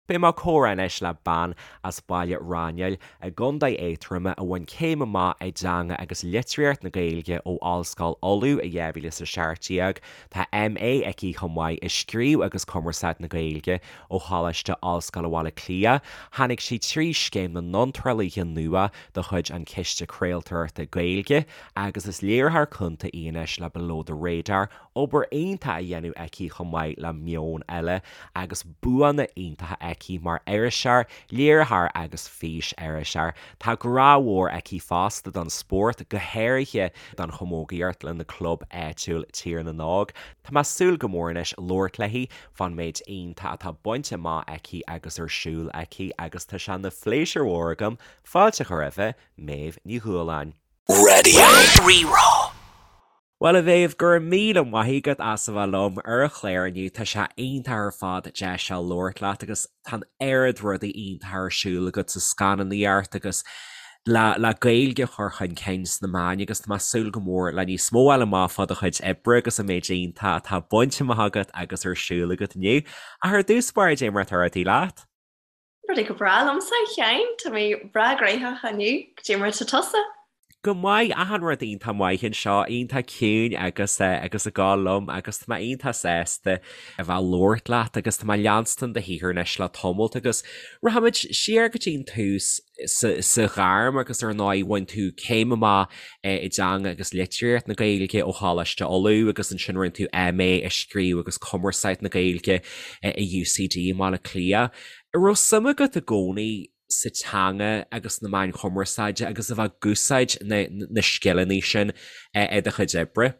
Beidh mé ag comhrá anois le bean as Baile Raghnaill i gContae Aontroma a bhain céim amach i dTeanga agus Litríocht na Gaeilge ó Ollscoil Uladh i 2017. Tá MA aici chomh maith i Scríobh agus Cumarsáid na Gaeilge ó Choláiste Ollscoile Bhaile Átha Cliath. Tháinig sí trí Scéim na nIontrálaithe Nua de chuid an Chiste Craoltóireachta Gaeilge agus is léiritheoir cúnta í anois le Below the Radar Obair iontach á dhéanamh aici chomh maith le Meon Eile agus buanna iontacha aici mar iriseoir, léiritheoir agus fís-iriseoir. Tá grá mhór aici fosta don spórt, go háirithe don chamógaíocht lena club áitiúil Tír na nÓg. Tá mé ag súil go mór anois labhairt léi fán méid iontach atá bainte amach aici agus ar siúl aici agus tá sé ina phléisiúr mhór agam fáilte a chur roimhe, Méabh Ní Dhúláin. Raidió Rí-Rá. Bhuel, a Mhéabh, go raibh míle maith agat as a bheith liom ar an chlár inniu. Tá sé iontach ar fad deis seo labhairt leat agus tá an oiread rudaí iontacha ar siúl agat sa scannánaíocht agus le le Gaeilge a chur chun cinn sna meáin agus tá mé ag súil go mór le níos mó a fháil amach fá do chuid oibre agus an méid iontach atá bainte amach agat agus ar siúl agat inniu. Ach ar dtús báire, cad é mar atá rudaí leat? Rudaí go breá liomsa, a Sheáin. Tá mé breá gnoitheach inniu. Cad é mar atá tusa? Go maith, achan rud iontach maith anseo, iontach ciúin agus agus ag gabháil liom agus tá mé iontach sásta a bheith ag labhairt leat agus tá mé ag leanstan do shaothar anois le tamalt agus rachaimid siar go dtí an tús sa sa ghairm agus ar ndóigh bhain tú céim amach i dTeanga agus Litríocht na Gaeilge ó Choláiste Uladh agus ansin rinne tú MA i Scríobh agus Cumarsáid na Gaeilge i UCD i mBaile Átha Cliath. An raibh suim agat i gcónaí sa teanga agus sna meáin chumarsáide agus a bheith ag úsáid na scileanna sin i do chuid oibre?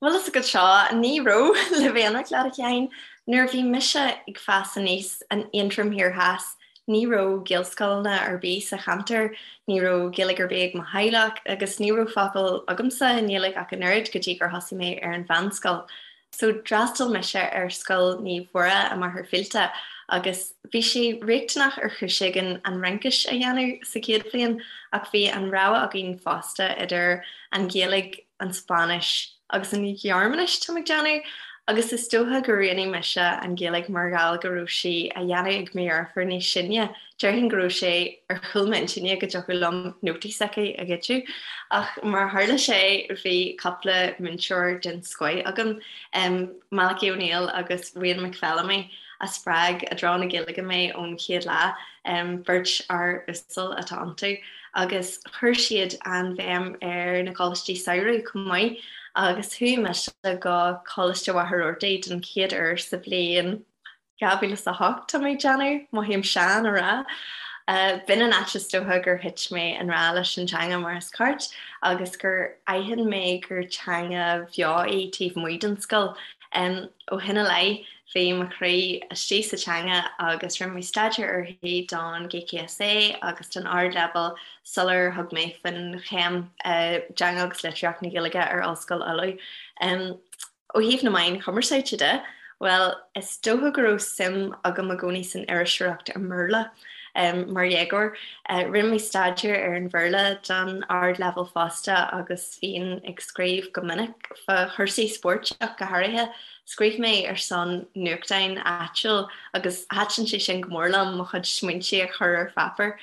Bhuel, is agat seo, ní raibh, le bheith ionraic leat, a Sheáin. Nuair a bhí mise ag fás aníos in Aontroim Thiar Theas, ní raibh Gaelscoileanna ar bith sa cheantar, ní raibh Gaeilge ar bith ag mo theaghlach agus ní raibh focal agamsa i nGaeilge ach an oiread go dtí gur thosaigh mé ar an mheánscoil. So d'fhreastail mise ar Scoil Naomh Mhuire i Machaire Fíolta agus bhí sé riachtanach ar chúis éigin an Fhraincis a dhéanamh sa chéad bhliain ach bhí an rogha againn fosta idir an Ghaeilge, an Spáinnis agus an Ghearmáinis, táim ag déanamh, agus is dócha gur roghnaigh mise an Ghaeilge mar gheall go raibh sí á dhéanamh ag mo dheirfiúr níos sine. Déarfainn go raibh sé ar chúl m'intinne go dtiocfadh liom nótaí s'aici a ghoideadh. Ach mar a tharla sé, bhí cúpla múinteoir den scoith agam, Malachy O'Neill agus Wayne McPhellamy, a spreag i dtreo na Gaeilge mé ón chéad lá. Beirt fhear uasal atá iontu agus chuir siad an-bhéim ar na coláistí samhraidh chomh maith agus chuaigh mise go Coláiste Mhachaire Rabhartaigh den chéad uair sa bhliain 2008, tá mé ag déanamh, mothaím sean á rá. B'in an áit is dócha gur thit mé i ngrá leis an teanga mar is ceart agus gur aithin mé gur teanga bheo í taobh amuigh den scoil. Ó shin i leith, bhí mo chroí istigh sa teanga agus rinne mé staidéar uirthi don GCSE agus don Ardleibhéal sular thug mé faoin chéim i dTeanga agus Litríocht na Gaeilge ar Ollscoil Uladh. Ó thaobh na meáin chumarsáide de, bhuel, is dócha go raibh suim agam i gcónaí san iriseoireacht i mBéarla mar dhéagóir. Rinne mé staidéar ar an Bhéarla don Ardleibhéal fosta agus bhínn ag scríobh go minic fá chúrsaí spóirt ach go háirithe. Scríobh mé ar son nuachtáin áitiúil agus thaitin sé sin go mór liom, mo chuid smaointe a chur ar pháipéar.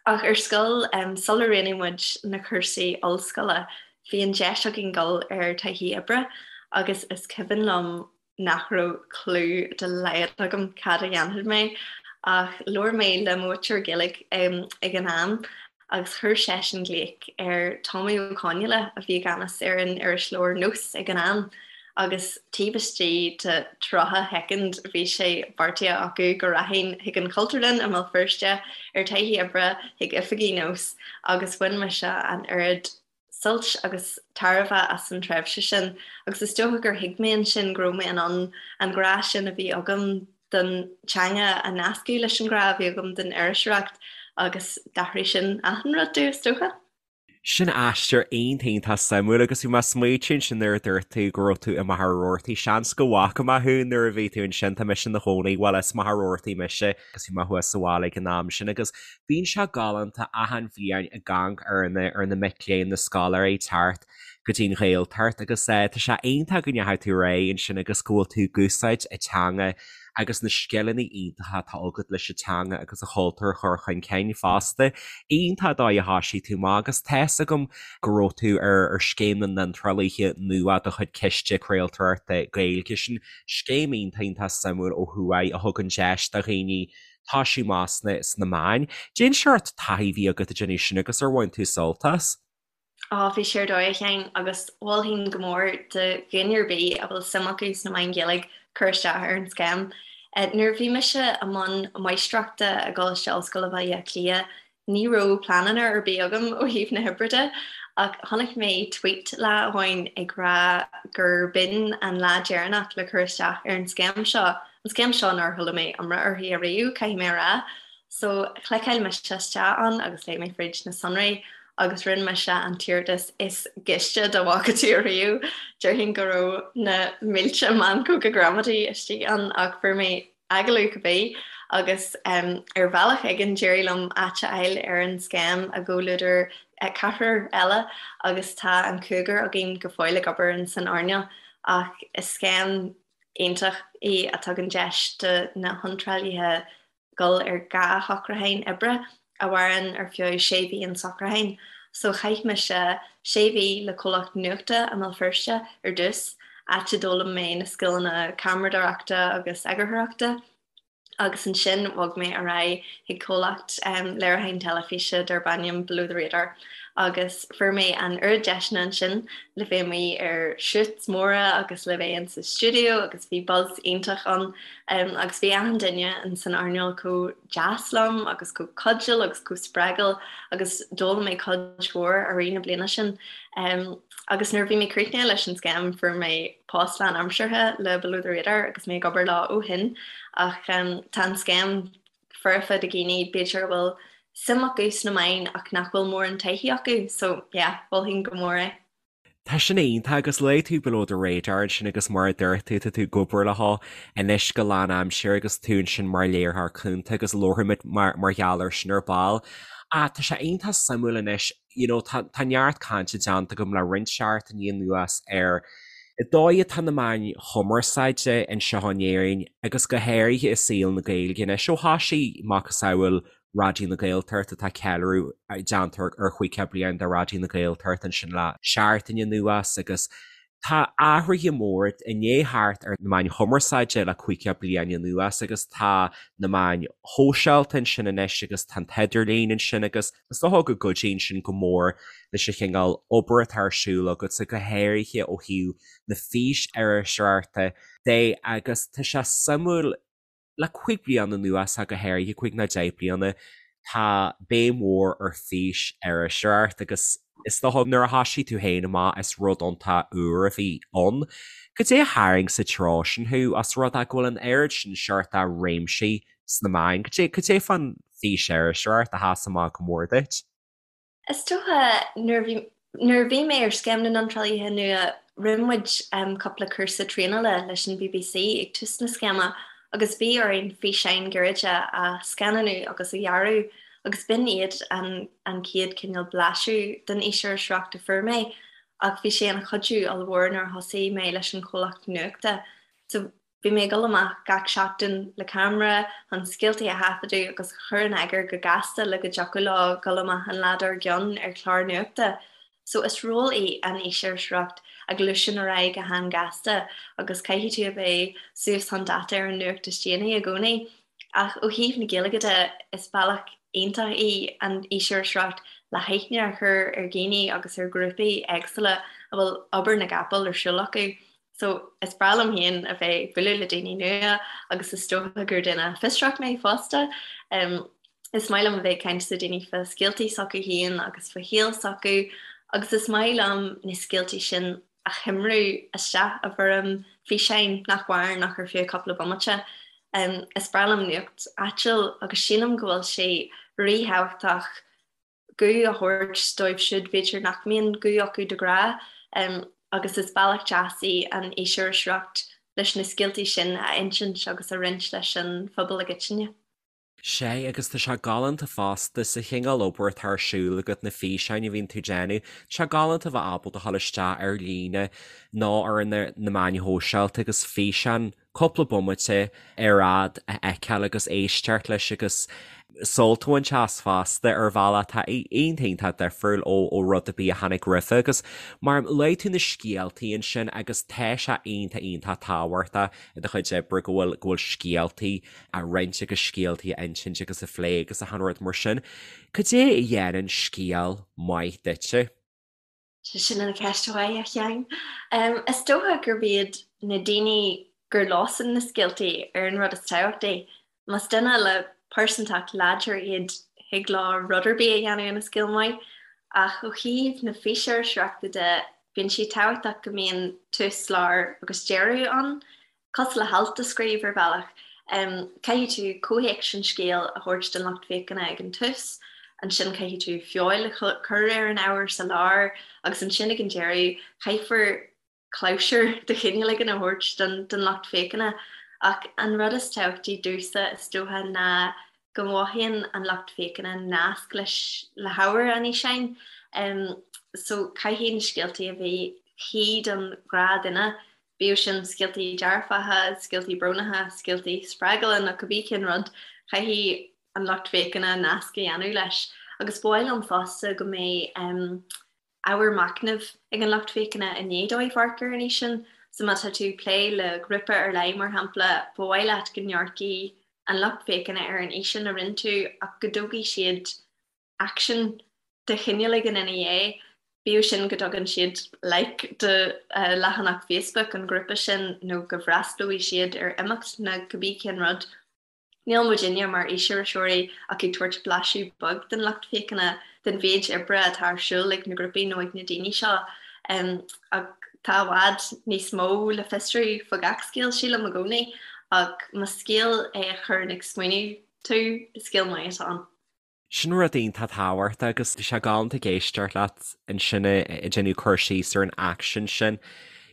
Ach ar scoil, sular roghnaigh muid na cúrsaí ollscoile, bhí an deis againn dul ar taithí oibre agus is cuimhin liom nach raibh clue dá laghad agam cad a dhéanfadh mé ach labhair mé le mo mhúinteoir Gaeilge ag an am agus chuir seisean glaoch ar Tommy Ó Conghaile a bhí i gceannas ar an irisleabhar Nós ag an am agus taobh istigh de 30 shoicind bhí sé beartaithe acu go rachainn chuig an Chultúrlann i mBéal Feirste ar taithí oibre chuig oifigí Nós agus bhain mise an oiread suilt agus tairbhe as an tréimhse sin agus is dócha gur thuig mé ansin go raibh mé in ann an grá sin a bhí agam don teanga a nascadh leis an ghrá a bhí agam don iriseoireacht agus d'athraigh sin achan rud domh, is dócha. Sin aistear iontach iontach suimiúil agus bhí mé ag smaoitiú ansin nuair a dúirt tú go raibh tú i Machaire Rabhartaigh, seans go bhfaca mé thú nuair a bhí tú ansin, tá mise ina chónaí, bhuel as Machaire Rabhartaigh mise agus bhí mé thuas sa bhaile ag an am sin agus Bíonn sé galánta achan bhliain ag amharc ar na ar na mic léinn, na scoláirí teacht go dtí an Ghaeltacht agus tá sé iontach go ndeachaigh tú ar aghaidh ansin agus go bhfuil tú ag úsáid an teanga. agus na scileanna iontacha atá agat leis an teanga agus an chultúr a chur chun cinn fosta. Iontach an dóigh a thoisigh tú amach agus tá's agam go raibh tú ar Scéim na nIontrálaithe Nua de chuid Ciste Craoltóireachta Gaeilge. Sin scéim iontach iontach suimiúil ó thuaidh a thugann deis do dhaoine toisiú amach sna meáin. Cén seort taithí a bhí agat ag déanamh sin agus ar bhain tú sult as? Á, bhí sé ar dóigh, a Sheáin, agus mholfainn go mór do dhuine ar bith a bhfuil suim acu sna meáin Ghaeilge cur isteach ar an scéim. Nuair a bhí mise i mbun máistreachta i gColáiste Ollscoile Bhaile Átha Cliath, ní raibh pleananna ar bith agam ó thaobh na hoibre de, ach chonaic mé tweet lá amháin ag rá gur b'in an lá deireanach le cur isteach ar an scéim seo, an scéim seo nár chuala mé iomrá uirthi ariamh, caithfidh mé a rá. So, chliceáil mise isteach ann agus léigh mé fríd na sonraí agus rinne mise an t-iarratas is gaiste dá bhfaca tú ariamh. Déarfainn go raibh na mílte meancóga gramadaí istigh ann ach fuair mé agallamh cibé agus ar bhealach éigin d'éirigh liom áit a fháil ar an scéim i gcomhluadar ceathrar eile agus tá an cúigear againn go fóill ag obair in san earnáil ach is scéim iontach í a tugann deis do na hiontrálaithe dul ar 2 shocrúchán oibre a mhaireann ar feadh sé mhí an socrúchán. So chaith mise sé mhí le comhlacht nuachta i mBéal Feirste ar dtús, áit a d'fhoghlaim mé na scileanna ceamaradóireachta agus eagarthóireachta, agus ansin bhog mé ar aghaidh chuig comhlacht léiriúcháin teilifíse darb ainm Below the Radar agus fuair mé an oiread deiseanna ansin le bheith amuigh ar shoots móra agus le bheith insa stiúideo agus bhí buzz iontach ann. Agus bhí achan duine in san earnáil chomh deas liom agus chomh cuidiúil agus chomh spreagúil agus d'fhoghlaim mé cuid mhór i rith na bliana sin. Agus nuair a bhí mé críochnaithe leis an scéim fuair mé post lánaimseartha le Below the Radar agus mé ag obair leo ó shin. Ach tá an scéim foirfe do dhaoine b'fhéidir a bhfuil suim acu sna meáin ach nach bhfuil mórán taithí acu. So yeah, mholfainn go mór é. Tá sin iontach agus luaigh tú Below the Radar ansin agus mar a dúirt tú, tá tú ag obair leo anois go lánaimseartha agus tú ansin mar léiritheoir cúnta agus labharfaimid mar mar gheall air sin ar ball. Ach tá sé iontach suimiúil anois, you know, tá tá neart cainte déanta agam le roinnt seachtainí anuas ar an dóigh atá na meáin chumarsáide anseo in Éirinn agus go háirithe i saol na Gaeilge anois ó thoisigh macasamhail Raidió na Gaeltachta, tá ceiliúradh déanta ar 50 bliain de Raidió na Gaeltachta ansin le seachtain anuas agus tá athruithe móra i ndiaidh theacht ar na meáin chumarsáide le 50 bliain anuas agus tá na meáin shóisialta ansin anois agus tá an t-idirlíon ansin agus is dócha go gcuidíonn sin go mór leis an chineál obair atá ar siúl agatsa, go háirithe ó thaobh na fís-iriseoireachta de agus tá sé suimiúil Le 5 bliana anuas, ach go háirithe, 5 nó 10 bliana, tá béim mhór ar fís-iriseoireacht agus is dócha nuair a thoisigh tú féin amach is rud iontach úr a bhí ann. Cad é a tharraing sa treo sin thú, os rud é go bhfuil an oiread sin seort de réimsí sna meáin? Cad é, cad é fán fís-iriseoireacht a sheas amach go mór duit? Is dócha nuair a bhí nuair a bhí mé ar Scéim na nIontrálaithe Nua rinne muid cúpla cúrsa traenála leis an bbc ag tús na scéime agus bhí orainn físeáin ghairide a scannánú agus a dhearadh agus b'in iad an an chéad cineál blaiseadh den fhís-iriseoireacht a fuair mé ach bhí sé ina chuidiú ollmhór nuair a thosaigh mé leis an chomhlacht nuachta. So Bhí mé ag dul amach gach seachtain le ceamara chun scéaltaí a thaifeadadh agus a chur in eagar go gasta le go dtiocfadh leo dul amach an lá dár gcionn ar chlár nuachta. So is ról í an fhís-iriseoireacht a ghluaiseann ar aghaidh go han-ghasta agus caithfidh tú a bheith suas chun dáta ar an nuacht is déanaí i gcónaí. Ach ó thaobh na Gaeilge de, is bealach iontach í an fhís-iriseoireacht le haithne a chur ar dhaoine agus ar ghrúpaí éagsúla a bhfuil obair na gcapall ar siúl acu. So, is breá liom féin a bheith ag bualadh le daoine nua agus is dócha gur duine fiosrach mé fosta. Is maith liom a bheith ag caint le daoine fá scéaltaí s'acu féin agus fá shaol s'acu agus is maith liom na scéaltaí sin a choimriú isteach i bhfoirm físeáin nach mhaireann ach ar feadh cúpla bomaite. Is breá liom nuacht áitiúil agus sílim go bhfuil sé ríthábhachtach guth a thabhairt dóibh siúd b'fhéidir nach mbíonn guth acu de ghnáth agus is bealach deas í an fhís-iriseoireacht leis na scéaltaí sin a insint agus a roinnt leis an phobal i gcoitinne. Sea, agus tá sé galánta fosta, sa chineál obair atá ar siúl agat, na físeáin a bhíonn tú ag déanamh, tá sé galánta a bheith ábalta a dhul isteach ar líne nó ar na meáin shóisialta agus físeán. cúpla bomaite ar fhad a fheiceáil agus éisteacht leis agus sult a bhaint as fosta ar bhealach atá iontach iontach difriúil ó rud ar bith a tháinig roimhe agus mar luaigh tú na scéaltaí ansin agus tá sé iontach iontach tábhachtach i do chuid oibre go bhfuil go bhfuil scéaltaí á roinnt agus scéaltaí a insint agus a phlé agus achan rud mar sin. Cad é a dhéanann scéal maith duitse? Sin an cheist mhaith, a Sheáin. Is dócha gurb iad na daoine gur leosan na scéaltaí ar an rud is tábhachtaí. Más duine le pearsantacht láidir iad thig leo rud ar bith a dhéanamh ina scéal maith. Ach ó thaobh na físiriseoireachta de, bíonn sé tábhachtach go mbíonn tús, lár agus deireadh ann. Cosúil le halt a scríobh ar bhealach, caithfidh tú comhthéacs an scéil a thabhairt don lucht féachana ag an tús, ansin caithfidh tú feoil a chur ar an ábhar sa lár agus ansin ag an deireadh caithfear clabhsúr de chineál éigin a thabhairt don lucht féachana. Ach an rud is tábhachtaí domhsa is dócha ná go mothaíonn an lucht féachana nasc leis le hábhar an fhíseáin. So caithfidh na scéaltaí a bheith cuí don ghnáthdhuine Bíodh sin scéaltaí dearfacha, scéaltaí brónacha, scéaltaí spreagúla nó cibé cén rud, caithfidh an lucht féachana nasc a dhéanamh leis. Agus ba mhaith liom fosta go mbeidh ábhar machnaimh ag an lucht féachana i ndiaidh dóibh amharc ar an fhíseán. So má tá tú ag plé le grúpa ar leith, mar shampla, ba mhaith leat go n-amharcfaidh an lucht féachana ar an fhíseán a rinne tú ach go dtógfaidh siad aicsean de chineál éigin ina dhiaidh, bíodh sin go dtugann siad like do leathanach Facebook an ghrúpa sin nó go bhfreastlóidh siad ar imeacht nó cibé cén rud. Níl muidinne mar fhísiriseoirí ach ag tabhairt blaiseadh beag don lucht féachana den mhéid oibre atá ar siúl ag na grúpaí nó ag na daoine seo. Ach tá i bhfad níos mó le fiosrú fá gach scéal, sílim i gcónaí, ach más scéal é a chuireann ag smaoineamh tú, is scéal maith atá ann. Sin rud iontach tábhachtach agus tá sé galánta ag éisteacht leat ansin ag déanamh cur síos ar an aicsean sin.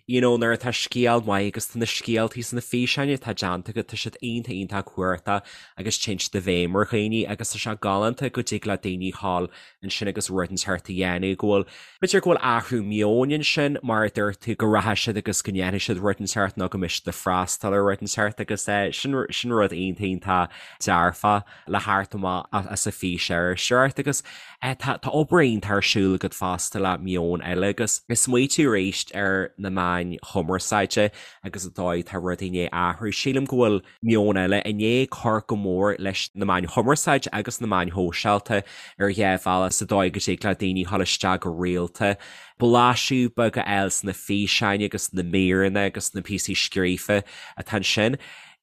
You know, nuair atá scéal maith agus tá na scéaltaí sna físeáin atá déanta agat, tá siad iontach iontach cumhachtach agus téann siad i bhfeidhm ar dhaoine agus tá sé galánta go dtig le daoine dhul ansin agus rud inteacht a dhéanamh, go bhfuil, b'fhéidir go bhfuil athrú meoin ansin mar a dúirt tú, go rachaidh siad agus go ndéanfaidh siad rud inteacht nó go mbeidh siad ag freastal ar rud inteacht agus sin, sin rud iontach iontach dearfach. le theacht amach as an bhfísiriseoireacht agus tá obair iontach ar siúl agat fosta le Meon Eile agus ag smaoitiú arís ar na meáin chumarsáide agus an dóigh atá rudaí i ndiaidh athrú. Sílim go bhfuil Meon Eile i ndiaidh cur go mór leis na meáin chumarsáide agus na meáin shóisialta ar dhá bhealach sa dóigh go dtig le daoine dhul isteach go rialta, blaiseadh beag a fháil sna físeáin agus na míreanna agus na píosaí scríofa atá ansin.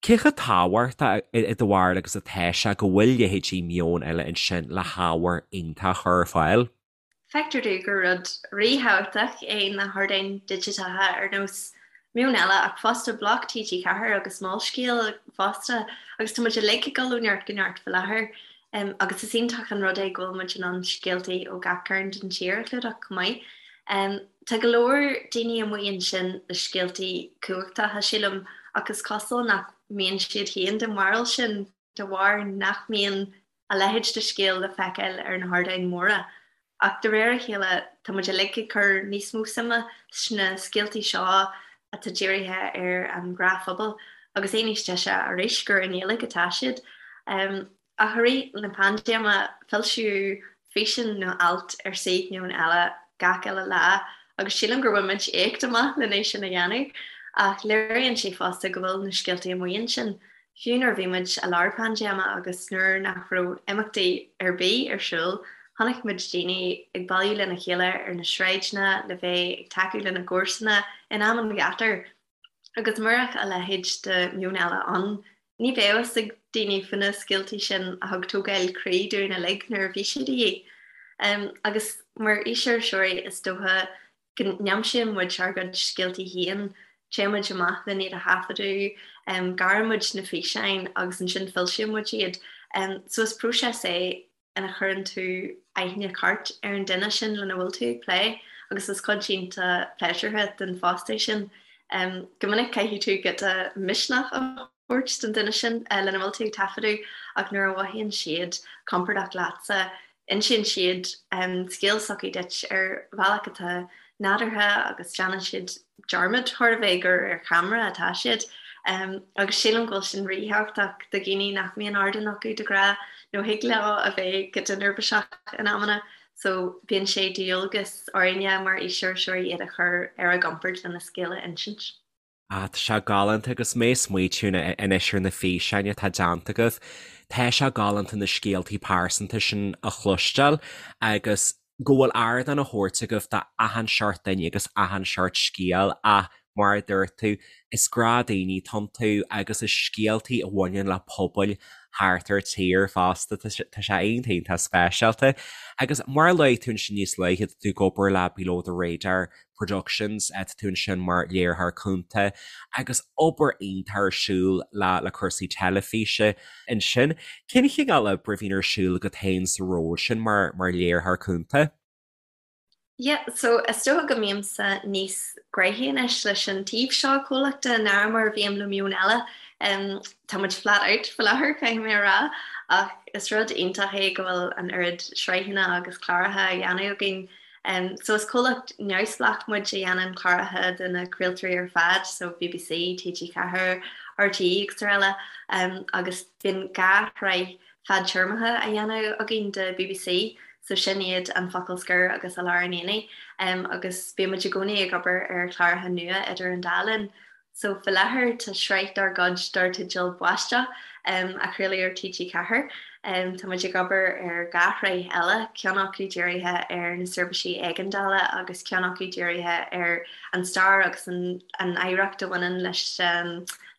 Cé chomh tábhachtach i do bharúil agus atá sé go bhfuil leithéidí Meon Eile ansin le hábhar iontach a chur ar fáil? Feictear domh gur rud ríthábhachtach é na hardáin digiteacha ar nós Meon Eile ach fosta Bloc TG4 agus Molscéal fosta agus tá muid uilig ag dul ó neart go neart faoi láthair agus is iontach an rud é go bhfuil muid in ann scéaltaí ó gach cearn den tír a chlúdach chomh maith. Tá go leor daoine amuigh ansin le scéaltaí cumhachtacha, sílim, ach is cosúil nach mbíonn siad féin den bharúil sin de bharr nach mbíonn a leithéid de scéal le feiceáil ar na hardáin mhóra. Ach de réir a chéile, tá muid uilig ag cur níos mó suime sna scéaltaí seo atá dírithe ar an ghnáthphobal, agus é níos deise arís gur i nGaeilge atá siad. Ach i rith na paindéime, foilsíodh físeán nó alt ar suíomh Meon Eile gach uile lá agus sílim gur bhain muid éacht amach len é sin a dhéanamh. Ach léiríonn sé fosta go bhfuil na scéaltaí amuigh ansin. Fiú nuair a bhí muid i lár paindéime agus nuair nach raibh imeachtaí ar bith ar siúl, chonaic muid daoine ag bailiú lena chéile ar na sráideanna le bheith ag tacú lena gcomharsana in am an ghátair. Agus murach a leithéid de Meon Eile ann, ní bheadh fhios ag daoine faoi na scéaltaí sin a thug tógáil croí dúinn uilig nuair a bhí siad de dhíth. Agus mar fhísiriseoirí is dócha go n-aimsíonn muid ár gcuid scéaltaí féin, téann muid amach len iad a thaifeadadh, gearrann muid na físeáin agus ansin foilsíonn muid iad. So is próiseas é ina chuireann tú aithne ceart ar an duine sin lena bhfuil tú ag plé agus is cuid iontach pléisiúrtha den phost é sin. Go minic caithfidh tú giota misneach a thabhairt don duine sin lena bhfuil tú ag taifeadadh ach nuair a mhothaíonn siad compordach leatsa, insíonn siad scéal s'acu duit ar bhealach atá nádúrtha agus déanann siad dearmad chóir a bheith gur ar cheamara atá siad. Agus sílim go bhfuil sin ríthábhachtach do dhaoine nach mbíonn ardán acu de ghnáth nó thig leo a bheith giota neirbhíseach in amanna. So bíonn sé de dhualgas orainne mar fhísiriseoirí iad a chur ar a gcompord lena scéal a insint. Ah, tá sé galánta agus mé ag smaoitiú anois ar na físeáin atá déanta agaibh. Tá sé galánta na scéaltaí pearsanta sin a chloisteáil agus go bhfuil ardán á thabhairt agaibh d'achan seort duine agus achan seort scéal ach mar a dúirt tú, is gnáthdhaoine atá iontu agus is scéaltaí a bhaineann le pobail thart ar tír fosta. Tá sé iontach iontach speisialta. Agus mar a luaigh tú ansin níos luaithe, tá tú ag obair le Below the Radar Productions, tá tú ansin mar léiritheoir cúnta agus obair iontach ar siúl le le cúrsaí teilifíse ansin. Cén chineál oibre a bhíonn ar siúl agat féin sa ról sin mar mar léiritheoir cúnta? Yeah, so is dócha go mbímse níos gnoithí anois leis an taobh seo comhlachta ná mar a bhím le Meon Eile. Um, tá muid flat out faoi láthair, caithfidh mé a rá, ach is rud iontach é go bhfuil an oiread sraitheanna agus cláracha á dhéanamh againn. Um, so is comhlacht neamhspleách muid a dhéanann cláracha do na craoltóirí ar fad, so BBC, TG4, RTÉ agus araile, um, agus bíonn 2 shraith fadtéarmacha á dhéanamh againn do bbc, so sin iad An Focal Scoir agus I Lár an Aonaigh, agus bíonn muid i gcónaí ag obair ar chláracha nua idir an dá linn. So faoi láthair tá sraith dár gcuid dar teideal Báisteach á chraoladh ar TG4. Tá muid ag obair ar 2 shraith eile, ceann acu dírithe ar na seirbhísí éigeandála agus ceann acu dírithe ar an stair agus an oidhreacht a bhaineann leis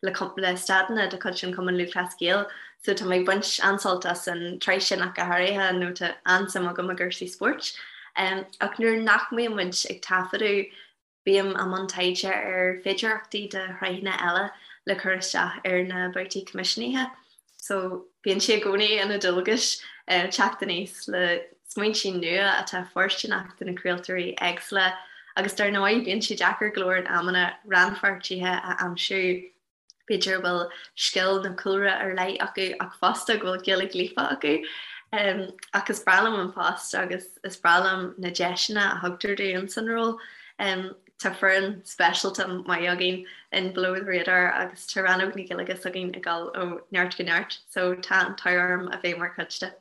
le staideanna de chuid an Chumann Lúthchleas Gael. So tá mé ag baint an-sult as an tsraith sin ach go háirithe nó tá an-suim agam i gcúrsaí spóirt. Ach nuair nach mbíonn muid ag taifeadadh bím i mbun taighde ar féidearthachtaí do shraitheanna eile le cur isteach ar na babhtaí coimisiúnaithe. So bíonn sé i gcónaí ina dualgas teacht aníos le smaointe nua atá fóirsteanach do na craoltóirí éagsúla agus dar ndóigh bíonn sé deacair go leor in amanna rannpháirtithe a aimsiú b'fhéidir a bhfuil scil nó cúlra ar leith acu ach fosta go bhfuil Gaeilge líofa acu. Ach is breá liom an post agus is breá liom na deiseanna a thugtar dúinn san ról. Tá foireann speisialta maith againn in Below the Radar agus tá rannóg na Gaeilge s'againn ag dul ó neart go neart so tá an t-ádh orm a bheith mar chuid de.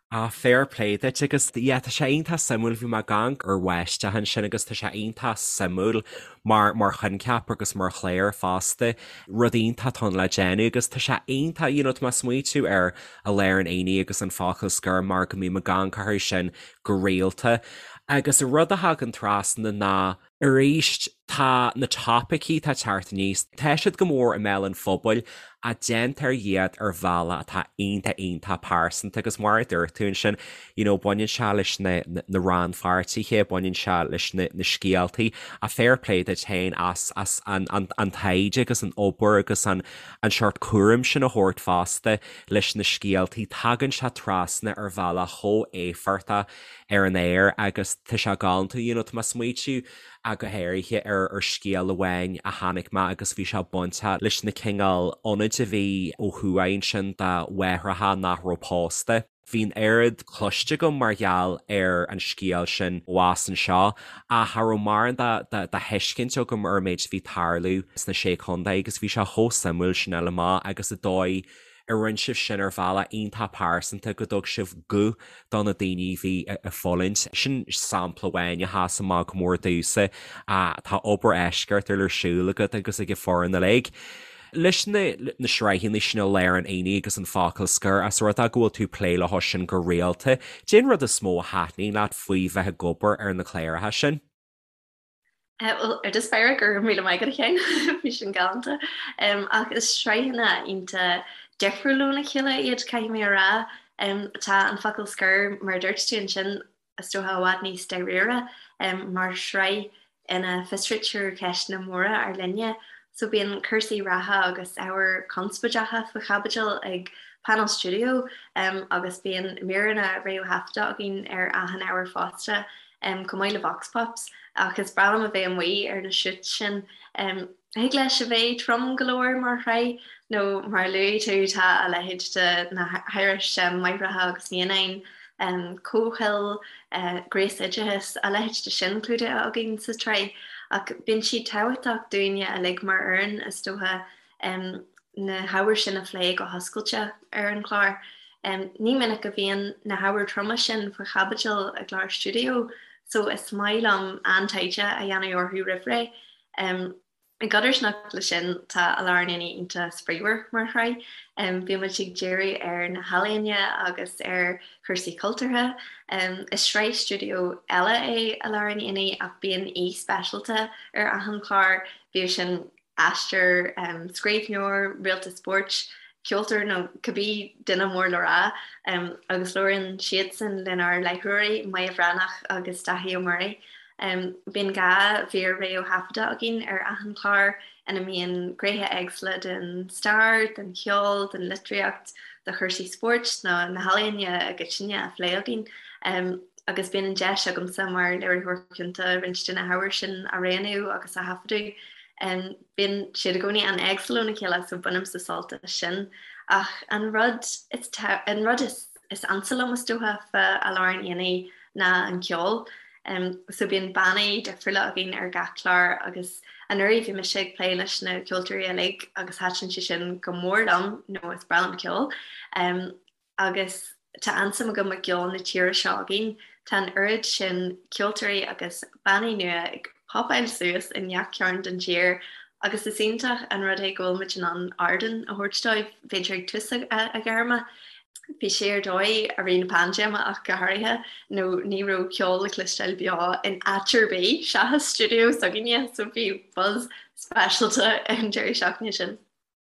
Ah, fair play duit agus yeah tá sé iontach suimiúil, bhí mé ag amharc ar Bháisteach ansin agus tá sé iontach suimiúil mar mar choincheap agus mar chlár fosta, rud iontach atá ann le déanamh agus tá sé iontach, you know, tá mé ag smaoitiú ar I Lár an Aonaigh agus An Focal Scoir mar go mbím ag amharc orthu sin go rialta agus an rud a thagann trasna ná Arís, tá na topaicí atá ag teacht aníos, tá siad go mór i mbéal an phobail ach déantar iad ar bhealach atá iontach iontach pearsanta agus mar a dúirt tú ansin, you know, baineann sé leis na na rannpháirtithe, baineann sé leis na na scéaltaí ach fair play duit féin as as an an an taighde agus an obair agus an an seort cúraim sin a thabhairt fosta leis na scéaltaí, tagann sé trasna ar bhealach chomh éifeachtach ar an aer agus tá sé galánta, you know, tá mé ag smaoitiú go háirithe ar ar scéal amháin a chonaic mé agus bhí sé bainteach leis na cineál ionaid a bhí ó thuaidh ansin do mháithreacha nach raibh pósta. Bhí an oiread cloiste agam mar gheall ar an scéal sin abhus anseo ach cha raibh mórán de de thuiscint agam ar an méid a bhí ag tarlú sna Sé Chontae agus bhí sé chomh suimiúil sin a fháil amach agus an dóigh a rinne sibh sin ar bhealach iontach pearsanta, go dtug sibh guth do na daoine a bhí ag fulaingt. Sin sampla amháin a sheas amach go mór domhsa. Tá obair eisceachtúil ar siúl agat agus ag an foireann uilig. Leis na sraitheanna sin I Lár an Aonaigh agus An Focal Scoir, as rud é go bhfuil tú ag plé leo sin go rialta, cén rud is mó a thaitníonn leat faoi bheith ag obair ar na cláracha sin? Bhuel, ar dtús báire, go raibh míle maith agat a Sheáin, bhí sin galánta. Ach is sraitheanna iontach difriúil óna chéile iad, caithfidh mé a rá. Tá An Focal Scoir, mar a dúirt tú ansin, is dócha i bhfad níos dáiríre mar shraith ina bhfiosraítear ceisteanna móra ár linne. So bíonn cúrsaí reatha agus ábhair chonspóideacha faoi chaibidil ag Painéal Stiúideo agus bíonn míreanna réamhthaifeadta againn ar achan ábhar fosta. chomh maith le vox pops, ach is breá liom a bheith amuigh ar na shoots sin. Thig leis a bheith trom go leor mar shraith, nó mar a luaigh tú, tá a leithéid de na hairis máithreacha agus naíonáin, comhshaoil, gnéasoideachas, a leithéid de sin clúdaithe againn sa tsraith. Ach bíonn siad tábhachtach dúinne uilig mar fhoireann, is dócha. Na hábhair sin a phlé go hoscailte ar an chlár. Ní minic a bhíonn na hábhair troma sin faoi chaibidil i gclár stiúideo so is maith liom an-taighde a dhéanamh orthu roimh ré. I gcodarsnacht leis sin, tá I Lár an Aonaigh iontach spraíúil mar shraith. Bíonn muid ag díriú ar na healaíona agus ar chúrsaí cultúrtha. Is sraith stiúideo eile é I Lár an Aonaigh ach bíonn aoi speisialta ar achan chlár, bíodh sin aisteoir, scríbhneoir, réalta spóirt, ceoltóir nó cibé duine mór le rá, agus labhraíonn siadsan lenár láithreoirí, Moya Bhreathnach agus Dáithí Ó Muirí. Bíonn 2 mhír réamhthaifeadta againn ar achan chlár ina mbíonn gnéithe éagsúla den stair, den cheol, den litríocht, de chúrsaí spóirt nó na healaíona i gcoitinne á phlé againn. Agus bíonn an deis agamsa mar léiritheoir cúnta roinnt de na hábhair sin a roghnú agus a thaifeadadh. Bíonn siad i gcónaí an-éagsúil óna chéile so bainimse sult as sin. Ach an rud is an rud is is ansa liom is dócha fá I Lár an Aonaigh ná an ceol. So bíonn bannaí difriúla againn ar gach clár agus anuraidh bhí mise ag plé leis na ceoltóirí uilig agus thaitin sé sin go mór liom nó is breá liom ceol. Agus tá an-suim agam i gceol na tíre seo againn. Tá an oiread sin ceoltóirí agus bannaí nua ag popáil suas i ngach cearn den tír agus is iontach an rud é go bhfuil muid in ann ardán a thabhairt dóibh, b'fhéidir ag tús a gairme. Bhí sé ar dóigh i rith na paindéime ach go háirithe, nó ní raibh ceol le cloisteáil beo in áit ar bith seachas stiúideo s'againne, so bhí buzz speisialta an deireadh seachtaine sin.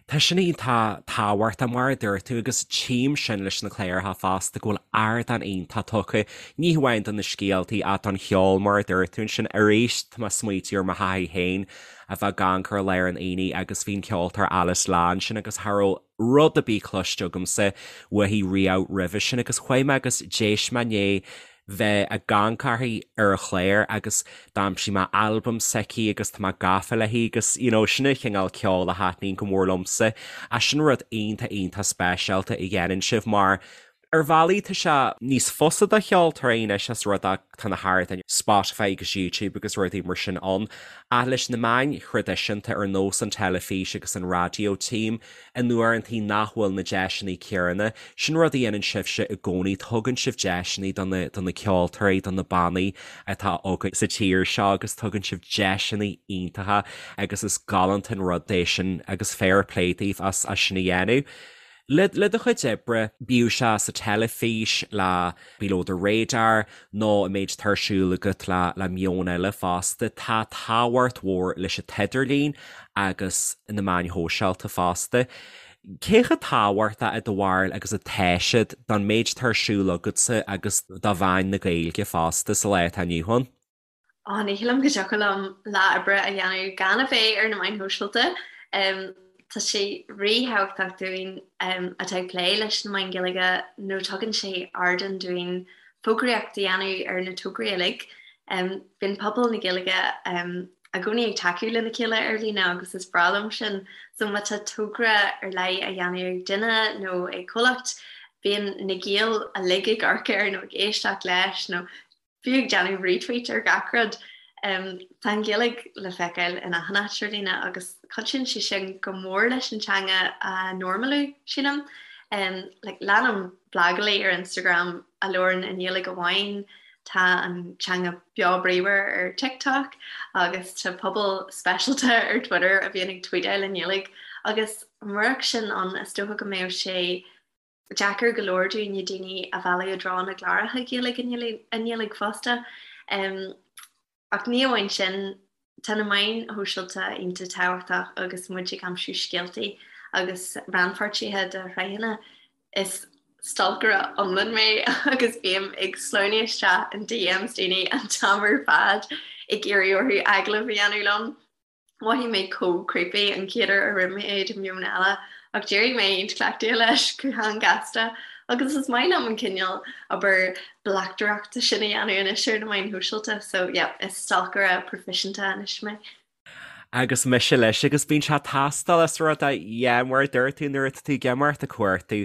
Tá sin iontach tábhachtach mar a dúirt tú agus tchím sin leis na cláracha fosta go bhfuil ardán iontach tugtha, ní hamháin do na scéaltaí ach don cheol mar a dúirt tú ansin. Arís tá mé ag smaoitiú ar mo thaithí féin a bheith ag amharc ar I Lár an Aonaigh agus bhí an ceoltóir Alice Lá ansin agus cha raibh rud ar bith cloiste agamsa uaithi riamh roimhe sin agus chuaigh mé agus d'éist mé i ndiaidh bheith ag amharc uirthi ar an chlár agus d'aimsigh mé albam s'aici agus tá mé gafa léi agus you know sin an chineál ceoil a thaitníonn go mór liomsa ach sin rud iontach iontach speisialta a dhéanann sibh mar Ar bhealaí tá sé níos fusa do cheoltóirí anois as rud é tá na hardáin Spotify agus YouTube agus rudaí mar sin ann, ach leis na meáin thraidisiúnta ar nós an teilifís agus an raidió tchím in uaireantaí nach bhfuil na deiseanna céanna. Sin rud a dhéanann sibhse i gcónaí, tugann sibh deiseanna do na do na ceoltóirí, do na bannaí atá againn sa tír seo agus tugann sibh deiseanna iontacha agus is galánta an rud é sin agus fair play daoibh as as sin a dhéanamh. Le do chuid oibre, bíodh sé sa teilifís le Below the Radar nó an méid atá ar siúl agat le Meon Eile fosta, tá tábhacht mhór leis an t-idirlíon agus na meáin shóisialta fosta. Cé chomh tábhachtach i do bharúil agus atá siad don méid atá ar siúl agatsa agus do mheáin na Gaeilge fosta sa lá atá inniu ann? Á, ní shílim go dtiocfadh liom lá oibre a dhéanamh gan a bheith ar na meáin shóisialta. Tá sé ríthábhachtach dúinn atá ag plé leis na meáin Ghaeilge nó tugann sé ardán dúinn fógraíocht a dhéanamh ar na tograí uilig. Bíonn pobal na Gaeilge i gcónaí ag tacú lena chéile ar líne agus is breá liom sin. So má tá togra ar leith á dhéanamh ag duine nó ag comhlacht, bíonn na Gaeil uilig ag amharc air nó ag éisteacht leis nó fiú ag déanamh retweet ar gach rud. Tá an Ghaeilge le feiceáil in achan áit ar líne agus cuidíonn sé sin go mór leis an teanga a normalú, sílim. Like, leanaim blagálaí ar Instagram a labhrann i nGaeilge amháin, tá an teanga beo bríomhar ar TikTok agus tá pobal speisialta ar Twitter a bhíonn ag tweetáil i nGaeilge agus murach sin ann is dócha go mbeadh sé deacair go leor dúinne daoine a mhealladh i dtreo na gcláracha Gaeilge i nGaeilge fosta. Ach ní amháin sin, tá na meáin shóisialta iontach tábhachtach agus muid ag aimsiú scéaltaí agus rannpháirtithe do shraitheanna. Is stalcaire iomlán mé agus bím ag sleamhnú isteach in DMs daoine an t-am ar fad ag iarraidh orthu agallamh a dhéanamh liom. Mhothaigh mé chomh creepy an chéad uair a rinne mé é do Meon Eile ach d'éirigh mé iontach cleachtaithe leis go han-ghasta agus is maith liom an cineál obair bleachtaireachta sin a dhéanamh anois ar na meáin shóisialta so yeah is stalcaire proifisiúnta anois mé. Agus mise leis agus bíonn sé ag teastáil is rud é yeah mar a dúirt tú nuair atá tú ag imeacht ag cuartú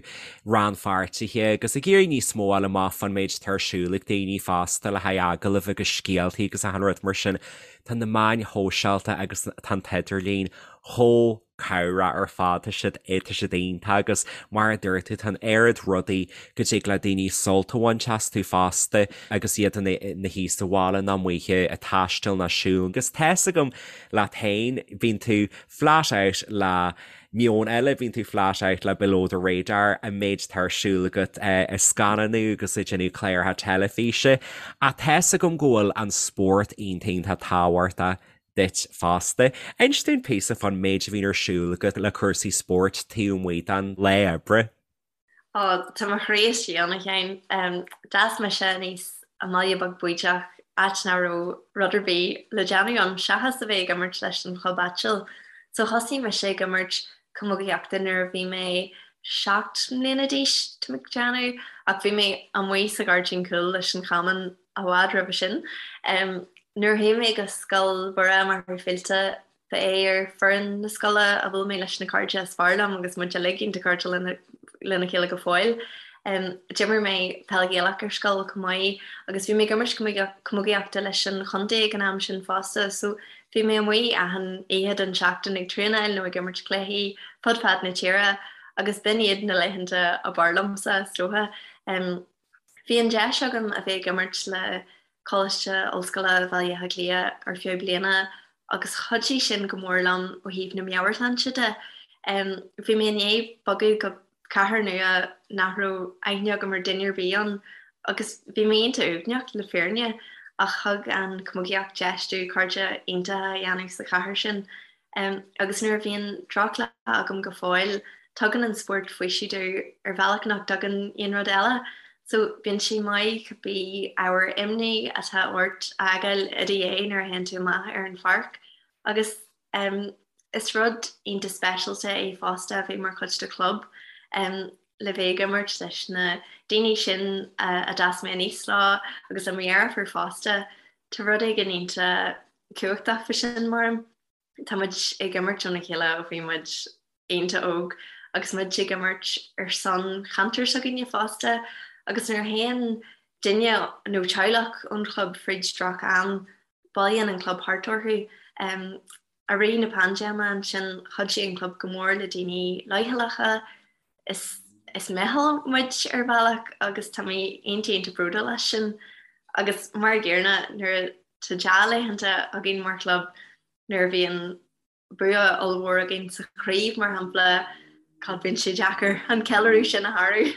rannpháirtithe agus ag iarraidh níos mó a fháil amach fán méid atá ar siúl ag daoine fosta le haghaidh agallaimh agus scéaltaí agus achan rud mar sin Tá na meáin shóisialta agus tá an t-idirlíon chomh Cabhrach ar fad, tá siad, tá siad iontach agus mar a dúirt tú, tá an oiread rudaí go dtig le daoine sult a bhaint astu fosta agus iad ina shuí sa bhaile nó amuigh ag taisteal nó siúl agus tá's agam leat féin, bíonn tú flat out le Meon Eile, bíonn tú flat out le Below the Radar, an méid atá ar siúl agat ag scannánú agus ag déanamh cláracha teilifíse ach tá's agam go bhfuil an spórt iontach iontach tábhachtach duit fosta. Inis dúinn píosa fán méid a bhíonn ar siúl agat le cúrsaí spóirt taobh amuigh den lá oibre. Ó, tá mo chroí istigh ann, a Sheáin. D'fhás mise aníos i mbaile beag bídeach, áit nach raibh rud ar bith le déanamh ann seachas a bheith ag imirt leis an chlub áitiúil. So thosaigh mise ag imirt camógaíochta nuair a bhí mé 7 mbliana d'aois, tá mé ag déanamh, ach bhí mé amuigh sa ghairdín cúil leis an chamán i bhfad roimhe sin. Nuair a chuaigh mé go Scoil Mhuire Machaire Fíolta, ba é ar foireann na scoile a bhuail mé leis na cairde is fearr liom agus muid uilig iontach cairdiúil lena chéile go fóill. D'imir mé peil Ghaelach ar scoil chomh maith agus bhí mé ag imirt camógaíochta leis an chontae ag an am sin fosta so bhí mé amuigh achan oíche den tseachtain ag traenáil nó ag imirt cluichí fud fad na tíre agus b'in iad na laethanta ab fhearr liomsa is dócha. Bhí an deis agam a bheith ag imirt le Coláiste Ollscoile Bhaile Átha Cliath ar feadh bliana agus chuidigh sin go mór liom ó thaobh na meabhairshláinte de. Bhí mé i ndiaidh bogadh go cathair nua nach raibh aithne agam ar duine ar bith ann agus bhí mé iontach uaigneach le fírinne ach thug an chamógaíocht deis domh cairde iontacha a dhéanamh sa chathair sin. Agus nuair a bhíonn drochlá agam go fóill, tugann an spórt faoiseamh domh ar bhealach nach dtugann aon rud eile. So bíonn sé maith cibé ábhar imní atá ort a fhágáil i do dhiaidh nuair a théann tú amach ar an pháirc. Agus is rud iontach speisialta é fosta a bheith mar chuid de chlub, le bheith ag imirt leis na daoine sin a d'fhás mé aníos leo agus le mo dheirfiúr fosta. Tá rud éigin iontach cumhachtach faoi sin, mar. Tá muid ag imirt óna chéile ó bhí muid iontach óg agus muid ag imirt ar son cheantar s'againne fosta agus nuair a théann duine nó teaghlach ón chlub fríd droch am, bailíonn an club thart orthu. I rith na paindéime ansin chuidigh an club go mór le daoine leochaileacha. Is is meitheal muid ar bhealach agus tá mé iontach iontach bródúil as sin. Agus mar a gcéanna nuair tá dea-laethanta againn mar chlub, nuair a bhíonn bua ollmhór againn sa chraobh mar shampla, God bíonn sé deacair an ceiliúradh sin a shárú.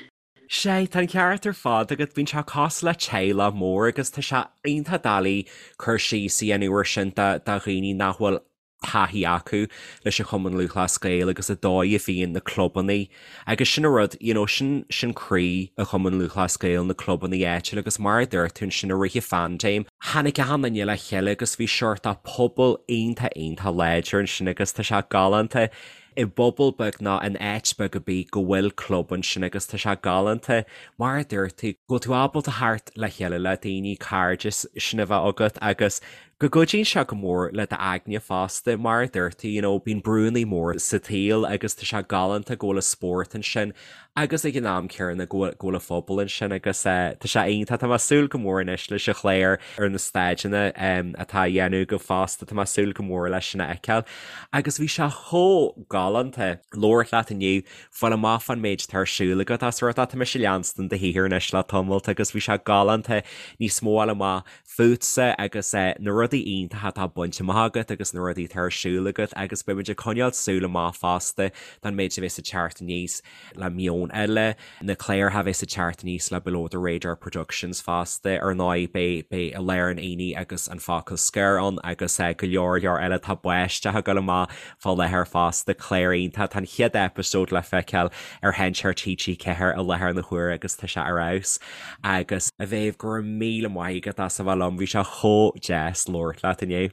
Sea, tá an ceart ar fad agat, bíonn sé cosúil le teaghlach mór agus tá sé iontach doiligh cur síos a dhéanamh ar sin do dhaoine nach bhfuil taithí acu leis an Chumann Lúthchleas Gael agus an dóigh a bhíonn na clubannaí agus sin an rud, you know, sin, sin croí an Chumann Lúthchleas Gael, na clubannaí áitiúla agus mar a dúirt tú ansin i rith an phaindéim, tháinig achan duine le chéile agus bhí seort de pobal iontach, iontach láidir ansin agus tá sé galánta i bpobal beag nó in áit beag ar bith go bhfuil club ansin agus tá sé galánta mar a dúirt tú, go bhfuil tú ábalta theacht le chéile le daoine, cairdeas sin a bheith agat agus go gcuidíonn sé go mór le d'aigne fosta, mar a dúirt tú, you know, bíonn brúnnaí mór sa tsaol agus tá sé galánta go bhfuil an spórt ansin agus ag an am céanna go bhfuil, go bhfuil an phobal ansin agus eh, tá sé iontach, tá mé ag súil go mór anois leis an chlár ar na staideanna em, atá á dhéanamh agaibh fosta, tá mé ag súil go mór leis sin a fheiceáil. Agus bhí sé chomh galánta labhairt leat inniu, fáil amach fán méid atá ar siúl agat as rud tá mise ag leanstan do shaothar anois le tamalt agus bhí sé galánta níos mó a fháil amach fútsa agus na rudaí iontacha atá bainte amach agat agus na rudaí atá ar siúl agat agus beimid ag coinneáil súil amach fosta don méid a bheas ag teacht aníos le Meon Eile, na cláracha a bheas ag teacht aníos le Below the Radar Productions fosta. Ar ndóigh beidh beidh I Lár an Aonaigh agus An Focal Scoir ann agus go leor leor eile. Tá Báisteach ag dul amach fá láthair fosta, clár iontach. Tá an chéad eipeasóid le feiceáil ar Sheinnteoir TG4 i láthair na huaire agus tá sé ar fheabhas. Agus a Mhéabh, go raibh míle maith agat as a bheith liom, bhí sé chomh deas labhairt leat inniu.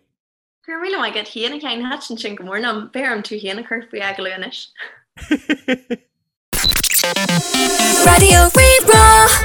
Go raibh míle maith agat féin, a Sheáin, thaitin sin go mór liom. Beidh orm tú féin a chur faoi agallamh anois. Raidió Rí-Rá.